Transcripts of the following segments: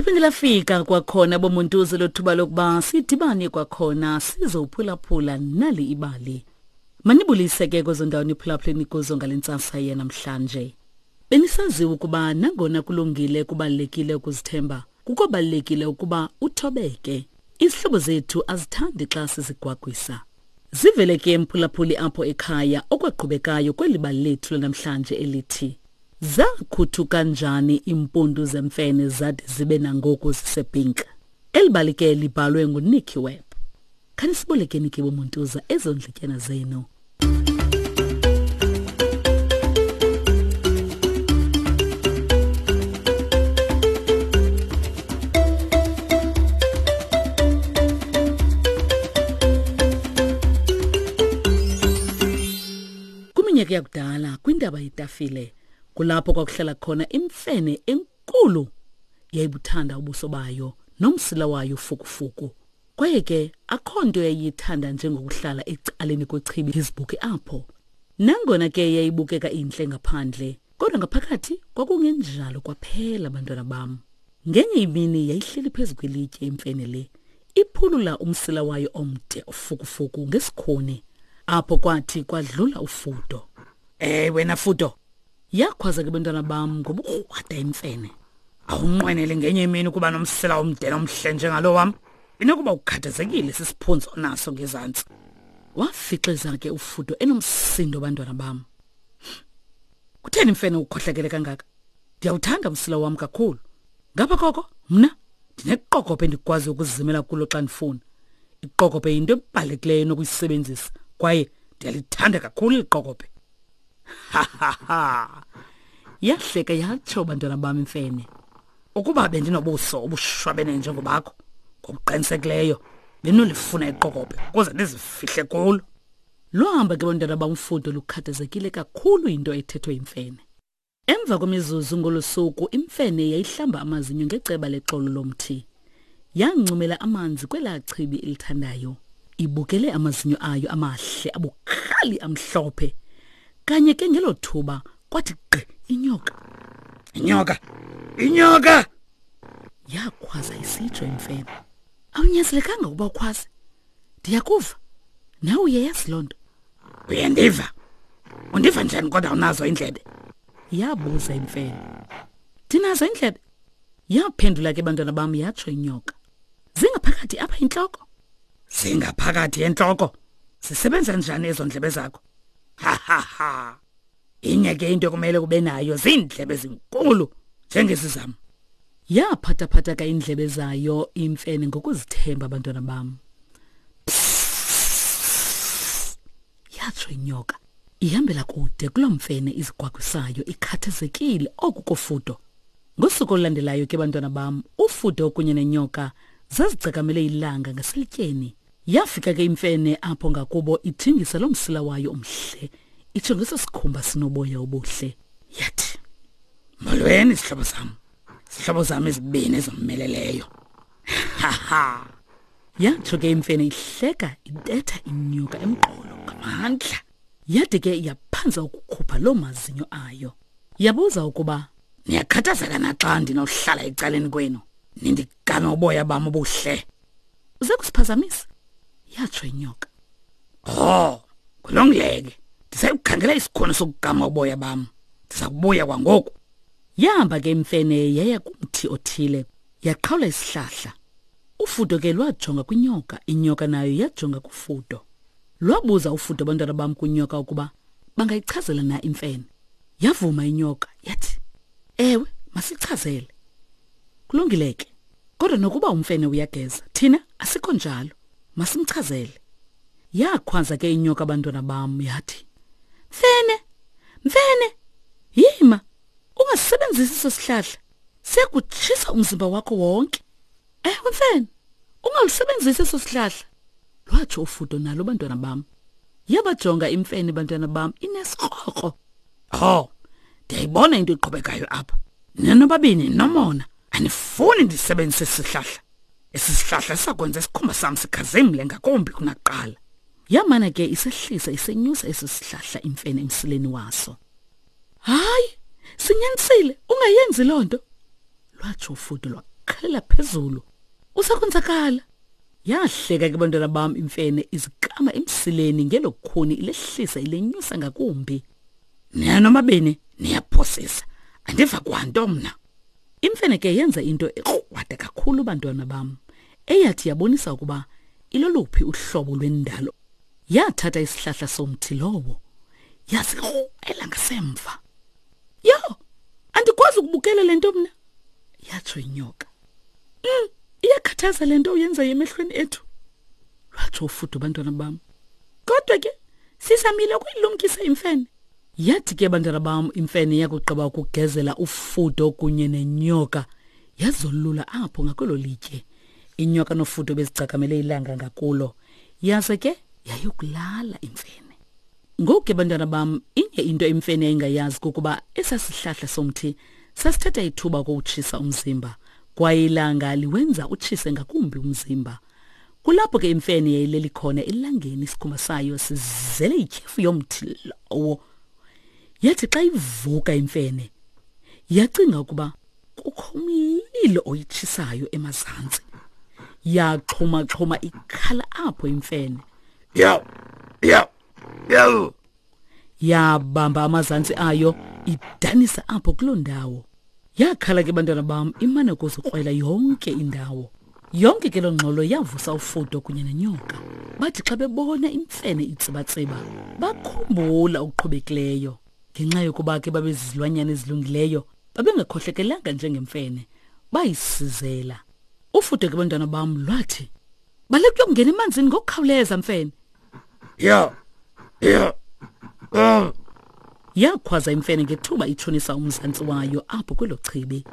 Liphinde lafika kwakhona bomuntuze lothuba lokuba sidibane kwakhona sizophulaphula nali ibali. Manibulise ke kwezo ndawo niphulaphuleni kuzo ngale ntsasa yanamhlanje. Benisaziwa ukuba nangona kulungile kubalulekile ukuzithemba, kukobalulekile ukuba uthobeke. Izihlobo zethu azithandi xa sizigwagwisa. Zivele ke mphulaphuli apho ekhaya okwaqhubekayo kweli bali lethu lanamhlanje elithi Zakhuthuka njani iimpundu zemfene zade zibe nangoku zisepink? Eli bali ke libhalwe nguNicky Webb. Khanisibolekeni ke bomuntuza ezo ndlityana zenu. Kwiminyaka yakudala kwintaba yetafile kulapho kwakuhlala khona imfene enkulu yayibuthanda ubuso bayo nomsila wayo fukufuku kwaye ke akho nto yayiyithanda njengokuhlala ecaleni kwechibi izibuke apho nangona ke yayibukeka intle ngaphandle kodwa ngaphakathi kwakungenjalo kwaphela bantwana bam ngenye imini yayihleli phezu kwelitye imfene le iphulula umsila wayo omde ofukufuku ngesikhuni apho kwathi kwadlula ufudo Eh wena fudo yakhwaza ke bantwana bam ngobukrwada imfene awunqwenele ngenye imini ukuba nomsila omde nomhle njengalo wam inokuba ukhathazekile sisiphunzi onaso ngezantsi wafixiza ke ufudo enomsindo bantwana bam kutheni mfene ukhohlakele kangaka ndiyawuthanda umsila wam kakhulu ngapha koko mna ndineqokobhe endikwazi ukuzimela kulo xa ndifuna iqokobhe yinto ebalulekileyo enokuyisebenzisa kwaye ndiyalithanda kakhulu iqokobhe ha ha ha yahleka yatsho bantwana bam imfene ukuba bendinobuso obushwabene njengobakho ngokuqinisekileyo bendinolifuna iqokobhe ukuze ndizifihle kulo lwahamba ke bantwana bamfudo lukhathazekile kakhulu yinto ethethwe yimfene Emva kwemizuzu ngolo suku imfene yayihlamba amazinyo ngeceba lexolo lomthi. Yancumela amanzi kwelaa chibi ilithandayo. Ibukele amazinyo ayo amahle abukhali amhlophe. Kanye ke ngelo thuba kwathi gqi inyoka. Inyoka! Inyoka! Yakhwaza isitsho imfene. Awunyanzelekanga ukuba ukhwaze. Ndiyakuva. Nawe uyayazi loo nto. Uyandiva? Undiva njani kodwa unazo iindlebe? Yabuza imfene. Ndinazo iindlebe. Yaphendula ke bantwana bam yatsho inyoka. Zingaphakathi apha intloko. Zingaphakathi entloko. Zisebenza njani ezo ndlebe zakho? Ha ha ha. Inye ke into ekumele kube nayo ziindlebe ezinkulu njengezi zam. Yaphathaphatha ka iindlebe zayo imfene ngokuzithemba abantwana bam. Yatsho inyoka. Ihambela kude kuloo mfene izigwagwisayo ikhathazekile oku kofudo. Ngosuku olulandelayo ke bantwana bam, ufudo kunye nenyoka zazigcakamele ilanga ngaselityeni. Yafika ke imfene apho ngakubo ithingisa loo msila wayo omhle, itsho ngeso sikhumba sinoboya obuhle. Yathi, Molweni sihlobo sam. Sihlobo sam ezibini ezomeleleyo. Ha ha. Yatsho ke imfene ihleka ibetha inyoka emqolo ngamandla. Yade ke yaphanza ukukhupha loo mazinyo ayo. Yabuza ukuba niyakhathazeka na xa ndinohlala ecaleni kwenu nindigame uboya bam obuhle. Uze kusiphazamisa, yatsho inyoka. Oh, kulungile ke. Ndisayukhangela isikhono sokugama uboya bam. Ndiza kubuya kwangoku. Yahamba ke imfene yaya kumthi othile, yaqhawula isihlahla. Ufudo ke lwajonga kwinyoka, inyoka nayo yajonga kufudo. Lwabuza ufudo abantwana bam kwinyoka ukuba bangayichazela na imfene. Yavuma inyoka yathi, "Ewe, masichazele." Kulungile ke. Kodwa nokuba umfene uyageza, thina asikho njalo. Masimchazele. Yakhwaza ke inyoka abantwana bam yathi, "Mfene, mfene, yima, ungasebenzisi eso sihlahla. Siyakutshisa umzimba wakho wonke." Ewe mfene, ungalusebenzisi eso sihlahla. Lwatsho ufudo nalo bantwana bam. Yabajonga imfene bantwana bam inesikrokro. Oh, ndiyayibona into eqhubekayo apha. Nina nobabini nomona. Anifuni ndisebenzise isihlahla. Esi sihlahla sakwenza isikhumba sam sikhazimle ngakumbi kunakuqala. Yamana ke isehlisa isenyusa esi sihlahla imfene emsileni waso. Hayi, sinyanisile, ungayenzi loo nto. Lwatsho ufudo lwakhala ukhalela phezulu. Usakonzakala. Yahleka ke bantwana bam imfene izikama emsileni ngelo khuni ilehlisa ilenyusa ngakumbi. Nina nomabini niyaphosisa. Andiva kwanto mna. Imfene ke yenza into ekrwada kakhulu bantwana bam, eyathi yabonisa ukuba iloluphi uhlobo lwendalo. Yathatha isihlahla somthi lowo, yasikrwela ngasemva. Yho, andikwazi ukubukela le nto mna, yatsho inyoka. Iyakhathaza le nto uyenzayo emehlweni ethu, lwatsho ufudo bantwana bam. Kodwa ke sizamile ukuyilumkisa imfene. Yathi ke bantwana bam imfene yakugqiba ukugezela ufudo kunye nenyoka, yazolula apho ngakwelo litye. Inyoka nofudo bezigcakamele ilanga ngakulo, yaze ke yayokulala imfene. Ngoku ke bantwana bam, inye into imfene yayingayazi kukuba esasihlahla somthi sasithatha ithuba ukuwutshisa umzimba, kwaye ilanga liwenza utshise ngakumbi umzimba. Kulapho ke imfene yayileli khona elangeni, isikhumba sayo sizele ityhefu yomthi lowo. Yathi xa ivuka imfene, yacinga ukuba kukho umlilo oyitshisayo emazantsi. Yaxhuma-xhuma ikhala apho imfene. Yaw, yaw, yaw. Yabamba amazantsi ayo idanisa apho kuloo ndawo. Yakhala ke bantwana bam imane ukuzikrwela yonke indawo. Yonke ke loo ngxolo yavusa ufudo kunye nenyoka. Bathi xa bebona imfene itsibatsiba, bakhumbula okuqhubekileyo. Ngenxa yokuba ke babezizilwanyana ezilungileyo, babengakhohlekelanga njengemfene, bayisizela. Ufudo ke bantwana bam lwathi, baleka uyokungena emanzini ngokukhawuleza mfene. Ya, ya, ya. Yakhwaza imfene ngethuba itshonisa umzantsi wayo apho kwelo chibi.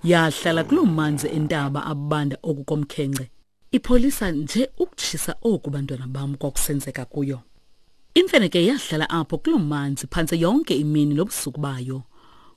Yahlala kuloo manzi entaba abanda oku komkhenkce, ipholisa nje ukutshisa oku bantwana bam kwakusenzeka kuyo. Imfene ke yahlala apho kuloo manzi phantse yonke imini nobusuku bayo.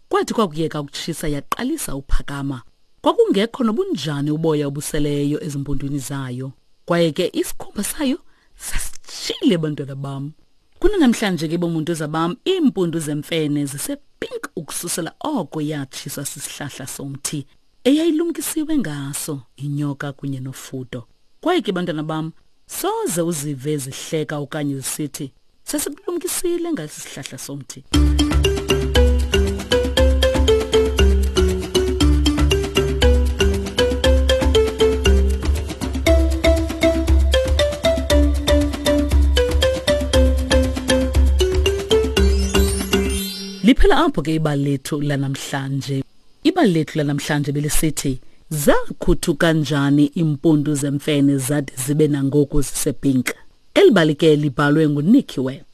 Kwathi kwakuyeka ukutshisa yaqalisa uphakama. Kwakungekho nobunjani uboya obuseleyo ezimpundwini zayo. Kwaye ke isikhumba sayo sasitshile bantwana bam. Kunanamhlanje ke bomuntu zabam iimpundu zemfene zisepink ukususela oko yatshiswa sisihlahla somthi eyayilumkisiwe ngaso inyoka kunye nofudo. Kwaye ke bantwana bam, soze uzive zihleka okanye zisithi sasikulumkisile ngesi sihlahla somthi. Liphela apho ke ibali lethu lanamhlanje. Ibali lethu lanamhlanje belisithi zakhuthu kanjani iimpundu zemfene zade zibe nangoku zisepink. Eli bali ke libhalwe nguNicky Webb.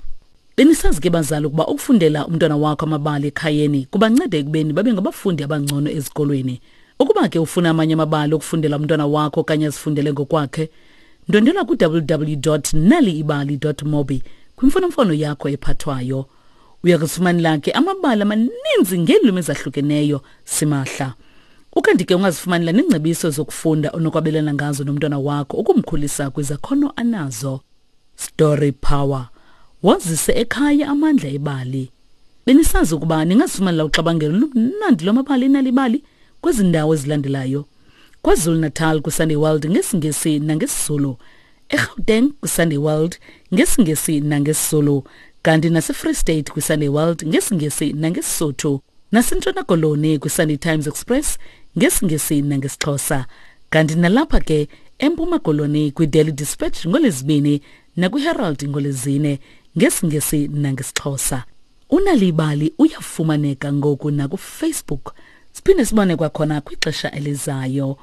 Benisazi ke bazali ukuba ukufundela umntwana wakho amabali ekhayeni kubanceda ekubeni babe ngabafundi abangcono ezikolweni. Ukuba ke ufuna amanye amabali okufundela umntwana wakho okanye azifundele ngokwakhe, ndwendwela ku-www.naliibali.mobi kwimfonomfono yakho ephathwayo. Uya kuzifumanela ke amabali amaninzi ngeelwimi ezahlukeneyo simahla. Ukanti ke ungazifumanela neengcebiso zokufunda onokwabelana ngazo nomntwana wakho ukumkhulisa kwizakhono anazo. Story Power. Wazise ekhaya amandla ebali. Benisazi ukuba ningazifumanela uxabangelo lumnandi lwamabali enalibali kwezi ndawo ezilandelayo. KwaZulu-Natal kwiSunday World ngesiNgesi nangesiZulu. eGauteng kwiSunday World ngesiNgesi nangesiZulu. Kanti naseFree State kwiSunday World ngesiNgesi nangeSisotho. NaseNtshona Koloni kwiSunday Times Express ngesiNgesi nangesiXhosa. Kanti nalapha ke eMpuma Koloni kwiDaily Dispatch ngoLwezibini nakwiHerald ngoLwezine ngesiNgesi nangesiXhosa. Unalibali uyafumaneka ngoku nakuFacebook. Siphinde sibone kwakhona kwixesha elizayo.